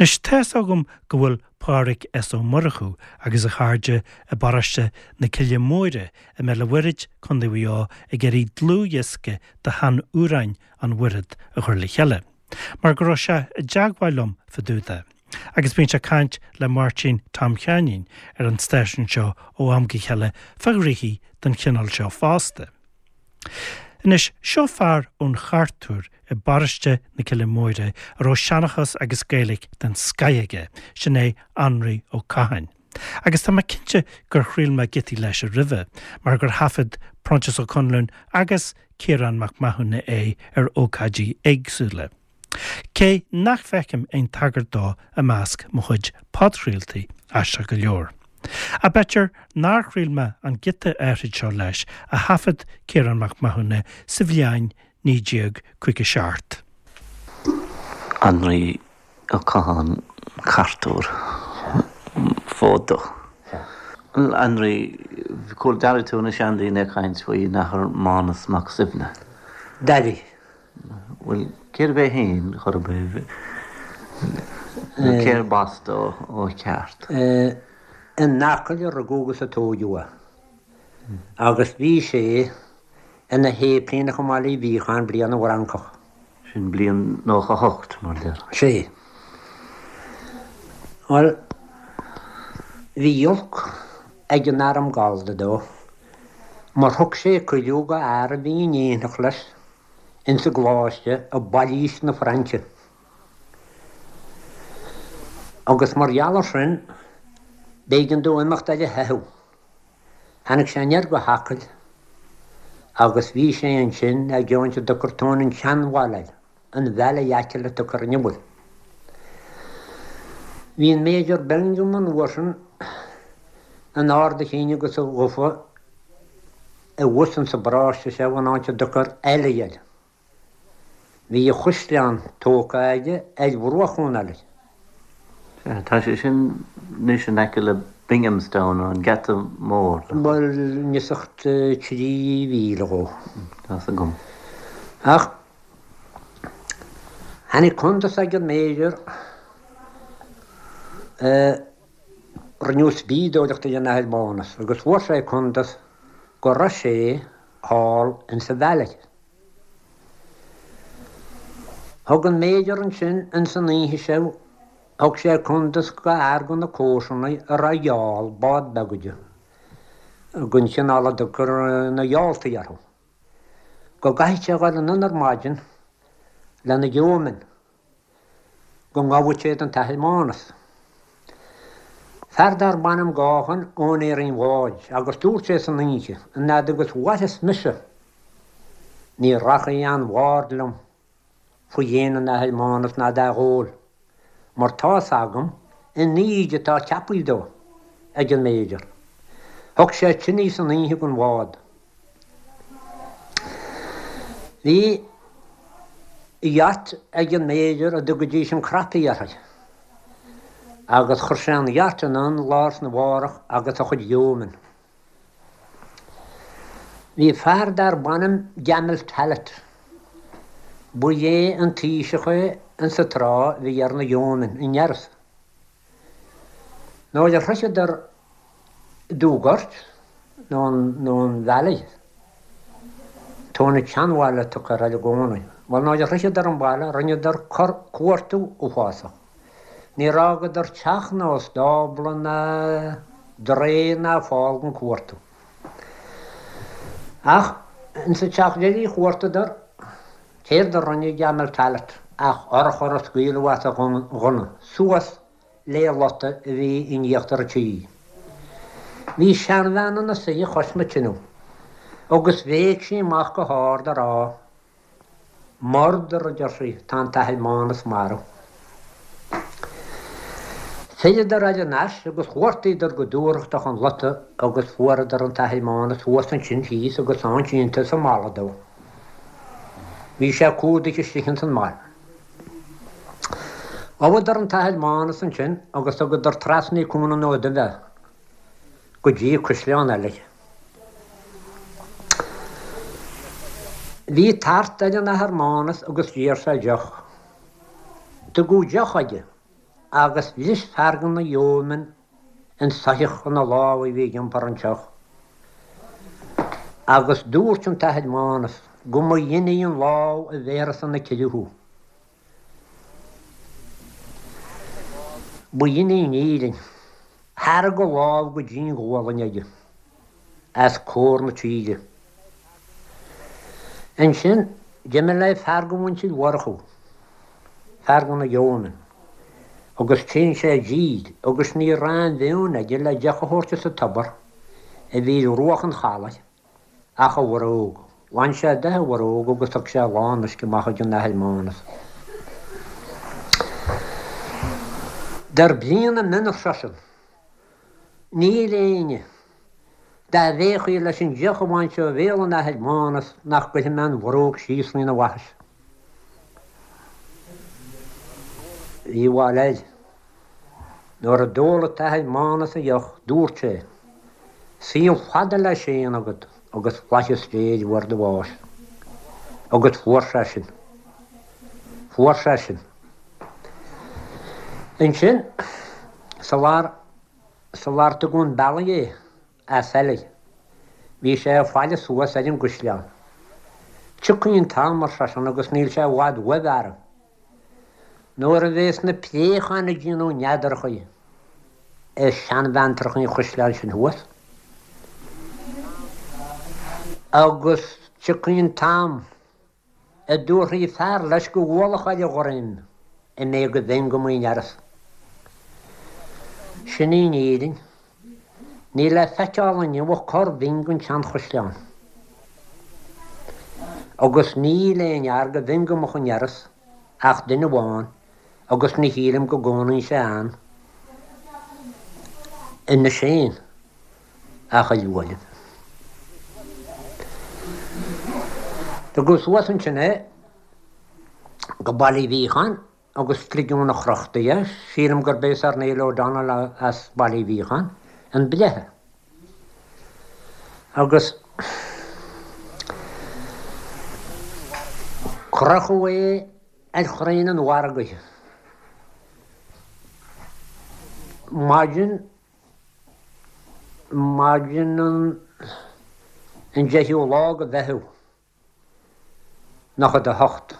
Anois, tá's agam go bhfuil Pádraig S. Ó Murchú agus a chairde i bparóiste na Cille Móire i mBéal an Mhuirthead, Co. Mhaigh Eo, ag iarraidh dlúthdhiosca de shean-amhráin an Mhuirthead a chur le chéile, mar go raibh sé i dteagmháil liom fá dtaobh de. Agus bíonn sé ag caint le Máirtín Tom Sheáinín ar an stáisiún seo ó am go chéile fá ghnoithí den chineál seo fosta. Anois, seo fear ón Chartúr i bparóiste na Cille Móire a raibh seanchas agus Gaeilge den scoith aige, sin é Anraí Ó Catháin. Agus tá mé cinnte gur chraol mé giotaí leis roimhe, mar gur thaifead Proinsias Ó Conluain agus Ciarán Mac Mathúna é ar ócáidí éagsúla. Cé nach bhfeicim aon tagairt dó i measc mo chuid podchraoltaí, aisteach go leor. Ach b'fhéidir nár chraol mé an giota áithrid seo leis a thaifead Ciarán Mac Mathúna sa bhliain 1957. Anraí Ó Catháin, Cartúr, fód dó. Anraí, chuala, d'airigh tú na seandaoine ag caint faoin Athair Mánas Mac Suibhne? D'airigh. Bhuel, cérbh é féin, chor ar bith, nó cérb as dó ó cheart? In Acaill a rugadh agus a tóigeadh é. Agus bhí sé ina shéiplíneach i mBaile Uí Bhiacháin bliain na bhFrancach. Sin bliain 98, mar a déarfá. Sea. Bhuel, bhí olc ag an arm Gallda dó, mar thug sé cuidiú go fhear a bhí in éineacht leis ins an gcoláiste i bpailís na Fraince. Agus mar gheall ar sin, b'éigean dó imeacht ar a theitheadh. Tháinig sé aniar go hAcaill agus bhí sé ansin i gceann a dtugtar Tóin an tSeanbhaile air, an Valley Achill a tugtar inniu air. Bhí an Major Bingham an uair sin in ard a chinn agus a ghufa i bhfus insa bparóiste seo in áit a dtugtar Ailigh air. Bhí a chaisleán tógtha aige ar bhruach an Ailigh. Sea, tá sé sin anois in aice le Binghamstown, an Geata Mór. Bhuel, neosach 3 mhíle dhó. Tá's agam. Ach tháinig cuntas ag an Major, rinneadh spíodóireacht ar an Athair Mánas agus fuair sé cuntas go raibh sé thall insa Valley. Thug an Major ansin ins an oíche seo, thug sé cuntas go fhear de na comharsanaigh a raibh yawl, bád beag aige, den chineál a dtugtar na yalltaí orthu, go gcaithfeadh sé a dhul anonn ar maidin lena yeomen. go ngabhfadh siad an tAthair Mánas. Fear darb ainm Gaughan, úinéir an bháid, agus dúirt sé san oíche, an fhad agus mhairfeas mise, ní rachaidh aon bhard liom faoi dhéin an Athar Mánas ná dá dhól, mar tá's agam an íde atá ceapaithe dó ag an Major. Thug sé tine san oíche don bhád. Bhí yacht ag an Major a dtugaidís an Croppy uirthi agus chuir sé an yacht anonn lá arna mhárach agus a chuid yeomen. Bhí fear darb ainm Gamel Tallett. Ba é an taoiseach é insa tráth a bhí ar na yeomen in Iorras. Nuair a shroicheadar Dúghort, nó an Valley, Tóin an tSeanbhaile a tugtar air i gcónaí. Bhuel, nuair a shroicheadar an baile, rinneadar cuartú uafásach. Níor fhágadar teach ná stábla ná draoi ná fál gan cuartú. Ach insa teach deiridh a chuartaíodar, céard a rinne Gamel Tallett ach urchar a scaoileadh as a ghunna, suas le lota a bhí in íochtar an tí. Bhí seanbhean ina suí cois na tineadh agus bhéic sí amach go hard a rá, Murder, a deir sí, tá an tAthair Mánas marbh. Philleadar thar n-ais agus chuartaíodar go dúthrachtach an lota agus fuaireadar an tAthair Mánas thuas ansin thíos agus ann sínte sa mballa dó. Bhí sé cumhdaithe istigh ins an mballa. Ghabhadar an tAthair Mánas ansin agus thugadar trasna Cuan an Fhóid Duibh é go dtí Caisleán Ailigh. Bhí tart ar an Athair Mánas agus d'iarr sé deoch. Tugadh deoch aige. Agus bhris fear de na yeomen an soitheach ina lámh a bhí ag iompar an tseoch. Agus dúirt an tAthair Mánas go mba dhin í an lámh a bhéarfas 'na cille thú. Ba dhin í an fhírinne. Thairg a lámh go dtí'n ghualainn aige, as comhair na tíre. Ansin, d'imigh le fear de mhuintir Mhurchú, fear de na yeomen, agus téann sé i dtír agus ní raibh aon mhionn aige le deoch a thabhairt as an tobar a bhí ar bhruach an chalaidh ach a bhróg. Bhain sé de a bhróg agus thug sé a lán uisce amach ag an Athair Mánas. Dar bliain a mionn ar seisean, Níl éinne, dá bhféachfaí leis an deoch a bhaint ó bhéal an Athair Mánas nach gcuirfidh mé an bhróg síos faoina bhaithis. Bhí a bhail air. Nuair a d'ól an tAthair Mánas a dheoch, dúirt sé, Saol fada le Séan agat agus flaitheas Dé ar uair do bháis. Agus fuair sé sin. Fuair sé sin. Ansin, sular, sular tugadh 'un bealaigh é, as Oiligh. Bhí sé ag faire suas ar an gcuisleán. Tiocfaidh an t-am, ar seisean, agus níl sé i bhfad uaidh, a fheara, nuair a bhéas na préacháin ag déanamh neadarachaí ar sheanbheantracha an chuisleáin sin thuas. Agus tiocfaidh an t-am a dtabharfaidh fear leis go mhullach ar a dhroim an méid go bhfeinn go m'fhearas. Sin í an fhírinne. Níl le feiceáil inniu ach corr-bhinn den tseanchaisleán. Agus níl aon fhear go bhfeinn go mbeadh i nDearas ach duine amháin agus ní shílim go gcónaíonn sé ann anois féin. Ach a Uaimh. Tugadh suas ansin é go Baile Uí Mhíocháin agus ligeadh 'na chrochta é, sílim gurb é Sir Neil O'Donnell as Baile Uí Mhíocháin an breitheamh. Agus crochadh é ar chrainn an mhargaidh. Maidin Maidin an deichiú lá de Mheitheamh, 98.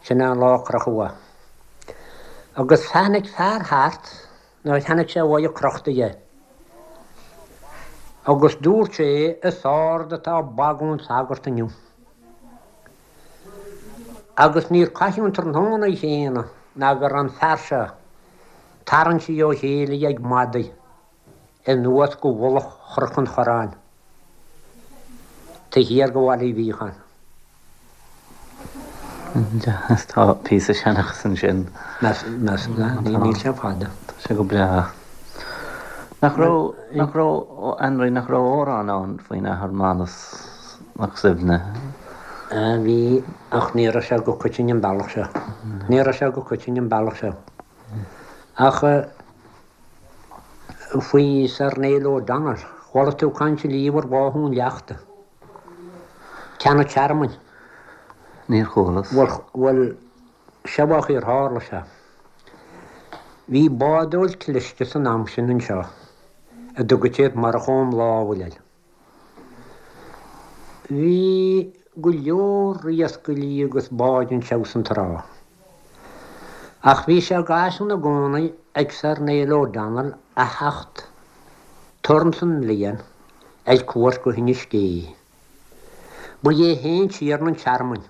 Sin é an lá a crochadh é. Agus tháinig fear thart nuair a chonaic sé uaidh crochta é. Agus dúirt sé, Is ard atá bagún sagart inniu. Agus níor caitheadh an tráthnóna chéanna ná go raibh an fear seo tarraingthe ó chéile ag madaidh anuas go mhullach Chnoc an Chorráin, taobh thiar de Bhaile Uí Mhíocháin. Tá píosa seanchas ansin. Meas, níl sé fada. Tá sé go breá. Nach raibh, nach raibh, Anraí, nach raibh amhrán ann faoin Athair Mánas Mac Suibhne? Bhí, ach ní raibh sé go coitinn an bealach seo. Ní raibh sé go coitinn an bealach seo. Ach faoi Sir Neil O'Donnell, chuala tú caint riamh ar bháthadh an leachta? Ceann an Tearmainn. Níor chualas. Bhuel, bhuel, seo mar a tharla sé. Bhí bádóir cliste san am sin anseo a dtugadh siad Murchadh Ó Málail air. Bhí go leor iascairí agus báid anseo san trá. Ach bhí sé d'fhaisean i gcónaí ag Sir Neil O'Donnell a theacht turn san mbliain ar cuairt go hInis Gé. Ba é féin tiarna an tearmainn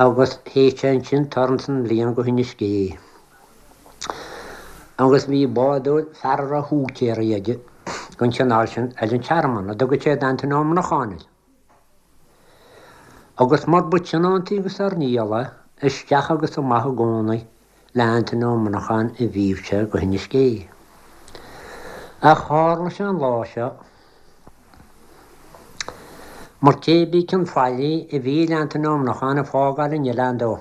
agus théadh sé ansin turn san mbliain go hInis Gé. Agus bhí bádóir, fear a raibh húicéirí aige den chineál sin ar an tearmann, a dtugadh siad Antaine Ó Monacháin air. Agus mar ba tionóntaí go Sir Niall é, isteach agus amach i gcónaí le Antaine Ó Monacháin a bhíodh sé go hInis Gé. Ach tharla sé an lá seo, mar cé bith cén faillí a bhí ar Antaine Ó Monacháin ag fágáil an oileáin dó,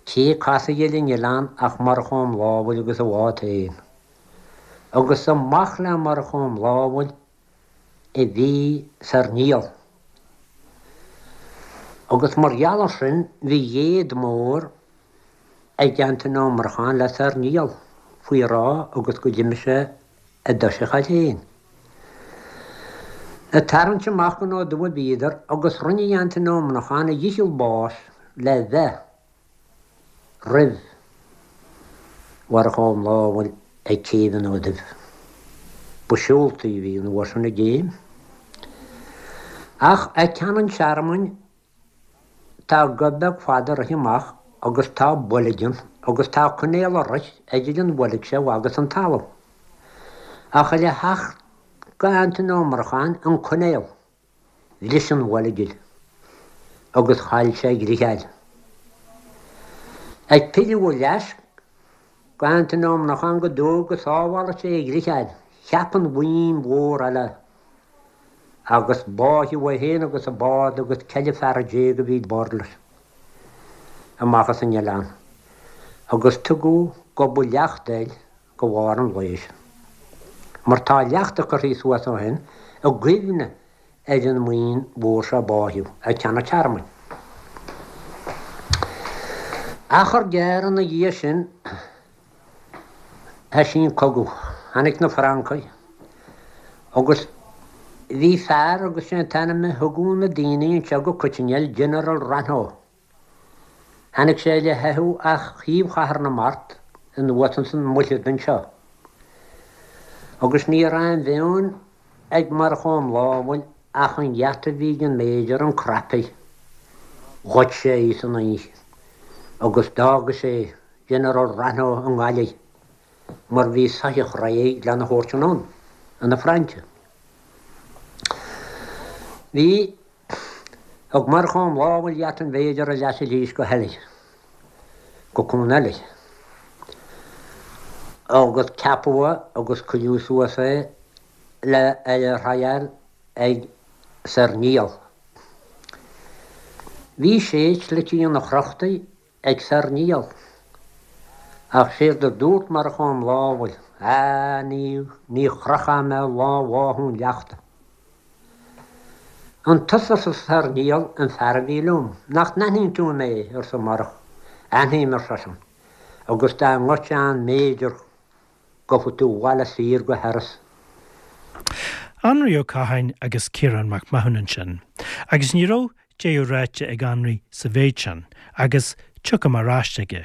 cé a casadh ar an oileán ach Murchadh Ó Málail agus a bhád féin. Agus amach le Murchadh Ó Málail a bhí Sir Niall. Agus mar gheall ar sin bhí éad mór ag Antaine Ó Murcháin le Sir Niall faoi rá agus go d'imigh sé i dtoiseach air féin. Ag tarraingt amach gon Ó Dubh a bhíodar agus rinne Antaine Ó Monacháin a dhícheall báis le bheith roimh Mhurchadh Ó Mámhail ag céibh an Ó Duibh. Ba seoltaí a bhí an uair sin i gcéim. Ach ag ceann an tearmainn tá gob beag fada ag rith amach agus tá boilg ann agus tá coinnéal ag rith idir an bhoilg seo agus an talamh. Ach le theacht go Antaine Ó Murcháin an coinnéal. Bhris an bhoilg agus chaill sé a dhritheáil. Ag pilleadh ar ais go Antaine Ó Monacháin go dóigh go sábhálfadh sé a dhritheáil, cheap an bhuíon mhór eile agus báitheadh é féin agus a bád agus 14 fear a bhí ar bord leis amach as an oileán agus tugadh Gob an Leachta air go bharr an lae seo. Mar tá leachta curtha suas ó shin i gcuimhne ar an mbuíon mhór seo a báitheadh ag Ceann an Tearmainn. Achar gearr ina dhiaidh sin thoisigh an cogadh. Tháinig na Francaigh agus bhí fear agus sé an t-ainm a thugadh na daoine anseo go coitinn air General Rainow. Tháinig sé le theitheadh as thaobh Chathair na Mart anuas ins an Mhuirthead anseo. Agus ní raibh aon mheon ag Murchadh Ó Mámhail ach an gheata a bhí ag an Major, an Crappie. Ghoid sé í san oíche agus d'fhága sé General Rainow i nGaillimh mar bhí soitheach réidh lena thabhairt anonn chun na Fraince. Bhí. Thug Murchadh Ó Mámhail geata an Mhéidir ar ais arís go hEilidh, go Cuan Eilidh, agus ceapadh é agus cuireadh suas é le ar a thriail ag Sir Niall. Bhí sé slite ina chrochtaí ag Sir Niall. Ach séard a dúirt Murchadh Ó Mámhail, Á, ní, ní chrochfaidh mé lá bháthadh an leachta. An tusa, arsa Sir Niall, an fear a bhí liom? Nach n-aithníonn tú mé? arsa Murchadh. Aithním, ar seisean, agus dá ngoidfeá an Major gabhfaidh tú abhaile saor go hIorras. Anraí Ó Catháin agus Ciarán Mac Mathúna ansin. Agus ní raibh deireadh ráite ag Anraí sa mhéid sin, agus tiocfaidh mé ar ais aige.